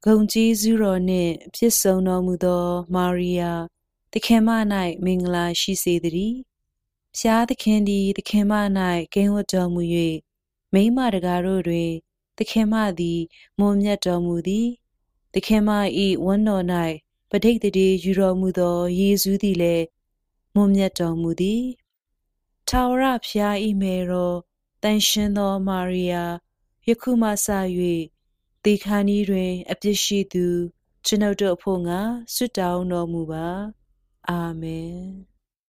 ဂုံကြီးစုတော်နှင့်ပြည့်စုံတော်မူသောမာရိယာသခင်မ၌မင်္ဂလာရှိစေတည်းဖျားသခင်သည်သခင်မ၌ကင်းဝတ်တော်မူ၍မိန်းမတကားတို့တွင်သခင်မသည်မွန်မြတ်တော်မူသည်သခင်မ၏ဝမ်းတော်၌ပဋိသန္ဓေယူတော်မူသောယေရှုသည်လည်းမွန်မြတ်တော်မူသည်ထာဝရဘုရား၏မေတော်တန်ရှင်သောမာရိယာယခုမှစ၍သေခါနီးတွင်အပြစ်ရှိသူကျွန်ုပ်တို့အဖို့ငါဆွတ်တောင်းတော်မူပါအာမင်